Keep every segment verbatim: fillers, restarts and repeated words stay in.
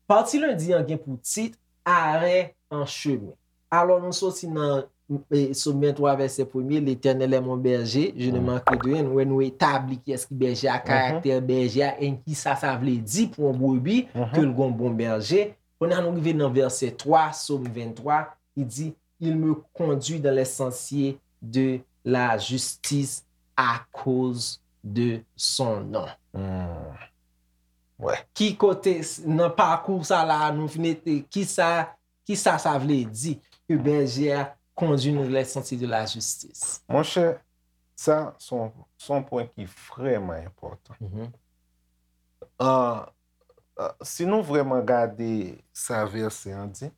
Pati lendi an gen pou tit Arè an chemen. Alò, nou soti nan e, Sòm venntwa, vèsè premye, L'Éternel est mon berger, je ne manquerai de rien. Nou wè nou etabli kiyès ki bèje a, karaktè bèje a, e kisa sa vle di pou yon brebi ke l gon bon bèje. Kounye a nou rive nan vèsè twa, Sòm venntwa, ki di, Il me conduit dans les sentiers de la justice à cause de son nom. Wè. Ki kote s- nan pakou sa la nou fin mete kisa kisa sa vle di ke bèje a kondui nou les sentiers de la justice? Monchè, sa se yon se yon pwen ki vrèman enpòtan. An, an, si nou vrèman gade sa vèsè an di,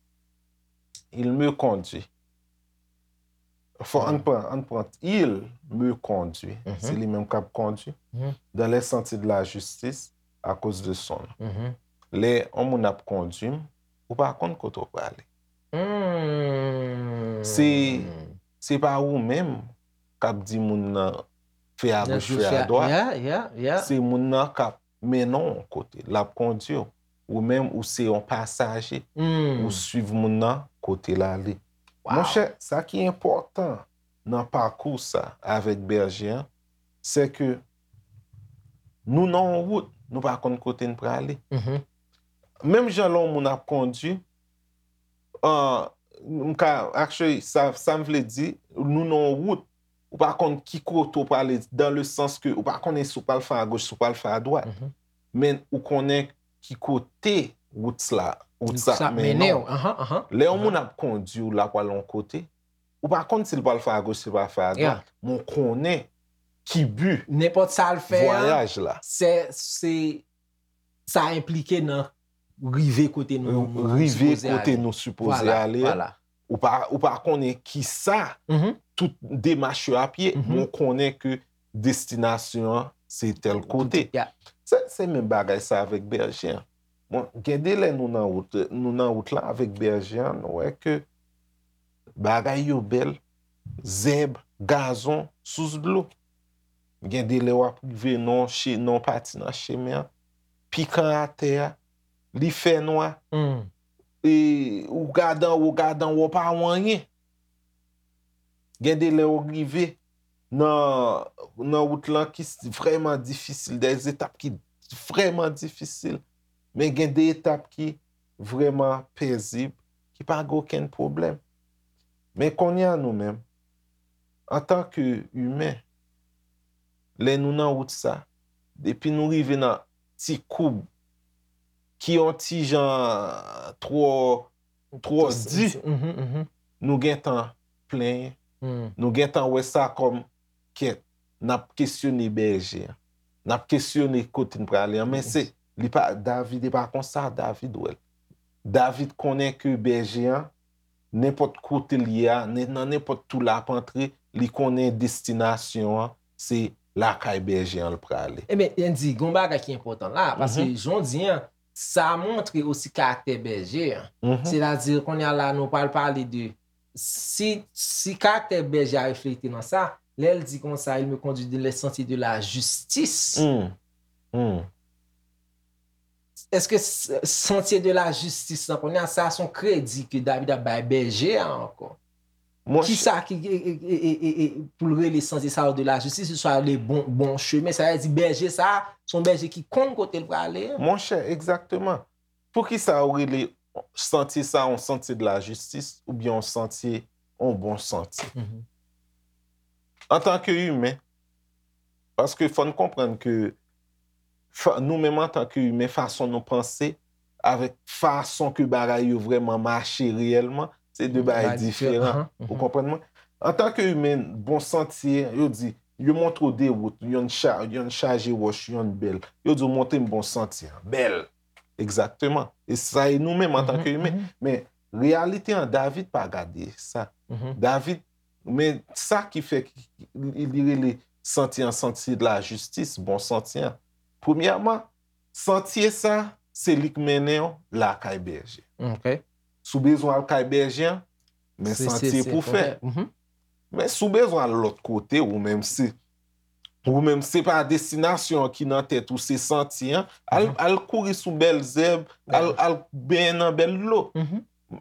Il me conduit. Fò ann pran, ann pran, Il me conduit. Se li menm k ap kondui. Dans les sentiers de la justice à cause de son nom. Lè yon moun ap kondui m, ou pa konn kote w prale. Se se pa ou menm k ap di moun nan fè agoch, fè adwat. Se moun nan k ap mennen w yon kote, l ap kondui w. Ou menm, ou se yon pasaje. Ou swiv moun nan kote l ale. Monchè, sa ki enpòtan nan pakou sa avèk bèje an, se ke nou nan yon wout, nou pa konn kote n prale. Menm jan lè yon moun ap kondui, an, m ka, actually, sa, sa m vle di, nou nan yon wout, ou pa konn ki kote w prale, dans le sens ke ou pa konnen si w pral fè agoch, si w pral fè adwat. Men ou konnen ki kote wout la, wout sa ap mennen w. Lè yon moun ap kondui w, l ap al yon kote, ou pa konn si l pral fè agoch, si l pral fè adwat. Men w konnen ki bi, nenpòt sa l fè a, vwayaj la. Se, se, sa enplike nan rive kote nou, nou Rive sipoze kote ale. Nou sipoze Vwala, ale. Vwala. Ou pa, ou pa konnen kisa tout demach yo ap ye, men w konnen ke destinasyon an se tèl kote. Ya. Se, se menm bagay sa avèk bèje an. Bon, gen de lè nou nan wout, nou nan wout la avèk bèje an, nou wè ke bagay yo bèl, zèb, gazon, sous dlo. Gen de lè w ap rive nan yon che-, nan yon pati nan chemen an, pikan atè a, li fè nwa. E ou gade anwo, gade anwo, w pa wè anyen. Gen de lè w rive nan, nan wout lan ki s- vrèman difisil, de etap ki vrèman difisil. Men gen de etap ki vrèman pezib, ki pa gen okenn pwoblèm. Men kounye a nou menm, antanke imen, lè nou nan wout sa, depi nou rive nan ti koub ki yon ti jan twò, twò di, nou gentan plenyen. Nou gentan wè sa kòm kèt, n ap kesyone bèje an. N ap kesyone kote n prale an. Men se, li pa, David, e pa konsa David wè l. David konnen ke bèje an, nenpòt kote l ye a, nen- nan nenpòt tou l ap antre, li konnen destinasyon an, se lakay bèje an l prale. Ebyen, Andy, gon bagay ki enpòtan la, paske jan w di an, sa montre osi karaktè bèje an. Sètadi, kounye a la, nou pral pale de si, si karaktè bèje a reflete nan sa, lè l di konsa, il me conduit dans les sentiers de la justice. Èske s- santye de la jistis lan, kounye a, sa se yon kredi ke David ap bay bèje a ankò? Kisa ki e, e, e, e, e, pou l rele santye sa yo de la jistis, se swa le bon, bon chemen, sa vle di bèje sa, se yon bèje ki konn kote l prale an. Monchè, egzakteman. Poukisa yo rele santye sa yon santye de la jistis oubyen yon santye, yon bon santye? Antanke imen, paske fò n konprann ke fa- nou menm antanke imen, fason nou panse, avèk fason ke bagay yo vrèman mache reyèlman, se de bagay diferan. Ou konprann mwen? Antanke imen, bon santye, yo di, yo montre w de wout, yonn cha- yonn chaje wòch, yonn bèl. Yo di w montre m bon santye an, bèl. Egzakteman. E sa e nou menm antanke imen. Men reyalite an, David pa gade sa. David, men sa ki fè ki- li li rele santye an santye de la jistis, bon santye an. Premyèman, santye sa, se li k mennen w lakay bèje. Si w bezwen al kay bèje an, Men santye pou fè. Men si w bezwen al lòt kote, ou menm se ou menm se pa destinasyon an ki nan tèt ou, se santye an, al, al kouri sou bèl zèb, al, al benyen nan bèl dlo.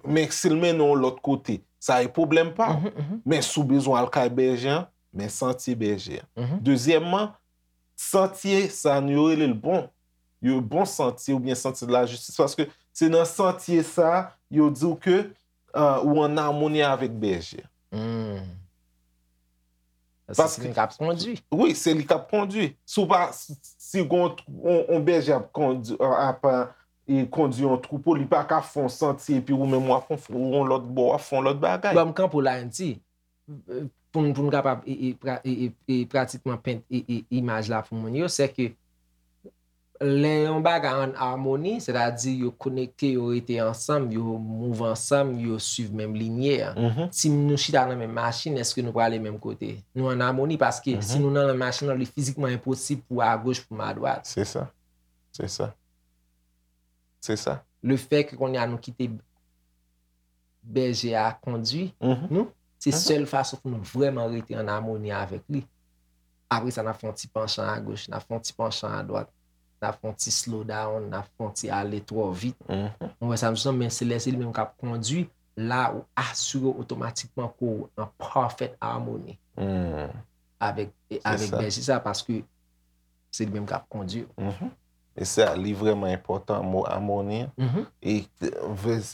Men si l mennen w lòt kote, sa e pwoblèm pa w. Men si w bezwen al kay bèje an, men santye bèje an. Dezyèmman, santye sa nou yo rele l bon. Yo bon santye oubyen santye de la jistis, paske se nan santye sa yo di w ke uh, ou an amoni avèk bèje. Hmm. Paske se li k ap kondui. Wi, se li k ap kondui. Si w pa, si yon bèje ap kondui, ap e kondui yon twoupo, li pa ka fè yon santye epi ou menm w ap yon lòt bò, w ap fè yon lòt bagay. Ban m kanpe w la, N T, pou n, pou n kapab e, e, pra, e, e, e pratikman pent e, e, imaj la pou moun yo, se ke lè yon bagay an amoni, sètadi yo konekte, yo rete ansanm, yo mouv ansanm, yo swiv menm linye a. Si nou chita nan menm machin, èske nou prale menm kote? Nou an amoni paske si nou nan menm machin nan, li fizikman enposib pou w agoch, pou m adwat. Se sa. Se sa. Se sa. Lefètke kounye a nou kite bèje a kondui nou, se sèl fason pou nou vrèman rete an amoni avèk li. Apre sa, n ap fè yon ti panchan agoch, n ap fè yon ti panchan adwat, n ap fè yon ti slow down, n ap fè yon ti ale twò vit. Ou wè sa m di w, men se lè se li menm k ap kondui, la ou asire w otomatikman ke w an parfaite harmonie avèk, avèk bèje sa, paske se li menm k ap kondui w. E sa, li vrèman enpòtan, mo amoni an. E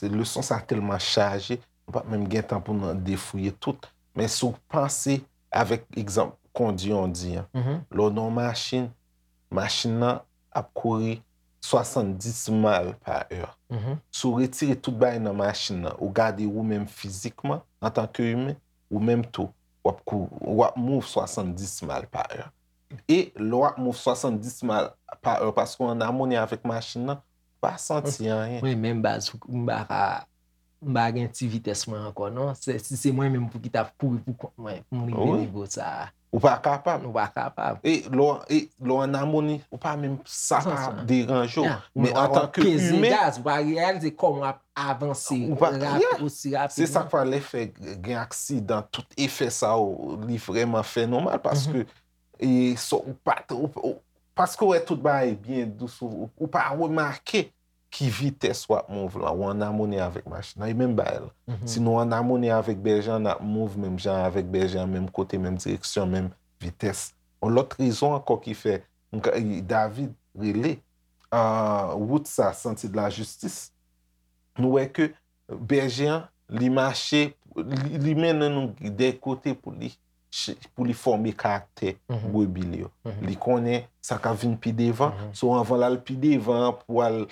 leson sa tèlman chaje, nou p ap menm gen tan pou n defouye tout. Men si w panse avèk egzanp kondui yon di an, lè w nan yon machin, machin nan ap kouri swasanndis mal pa è. Si w retire tout bagay nan machin nan, ou gade ou menm fizikman, antanke imen, ou menm tou, w ap kou, w ap mouv swasanndis mal pa è. E lè w ap mouv swasanndis mal pa è, paske w an amoni avèk machin nan, ou pa santi anyen. Mwen menm baz, m pa ka, m pa gen ti vitès mwen ankò non. Si se mwen menm pou ki t ap kouri pou kont mwen, pou m rive nivo sa a. Ou pa kapab. Ou pa kapab. E lè w an amoni, ou pa menm, sa pa deranje w. Men antanke imen, ou pa reyalize kòman w ap avanse osi rapidman. Se sa k fè lè fè gen aksidan, tout efè sa yo, li vrèman fè nou mal, paske e sa ou pa, ou, ou, paske w wè tout bagay byen dous, ou, ou pa remake ki vitès w ap mouv lan, ou an amoni avèk machin nan, e menm bagay la. Si nou an amoni avèk bèje an, n ap mouv menm jan avèk bèje an, menm kote, menm direksyon, menm vitès. Yon lòt rezon ankò ki fè David rele wout sa Sentier de la Justice, nou wè ke bèje an, li mache, li, li mennen nou de kote pou li, pou li fòme karaktè brebi l yo. Li konnen sa k ap vin pi devan. So, anvan l al pi devan an, pou al,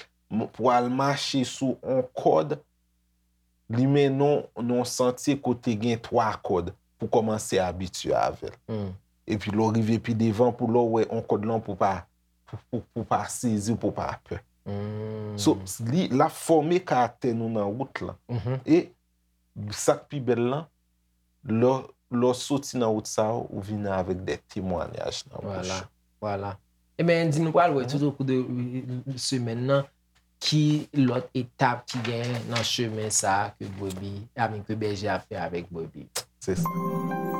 pou al mache sou on kòd, li mennen w nan yon santye kote gen twa kòd pou kòmanse abitye avè l. Epi lè w rive pi devan, pou lè w wè on kòd lan, pou pa, pou, pou, pou pa sezi, pou pa pè. So, li, l ap fòme karaktè nou nan wout lan. E sa k pi bèl lan, lè, lè w soti nan wout sa yo, ou vini avèk de temwayaj nan bouch ou. Vwala. Ebyen, Andy, nou pral wè tout o kou de semèn nan, ki lòt etap ki genyen nan chemen sa a ke brebi, I mean, ke bèje a fè avèk brebi. Se sa.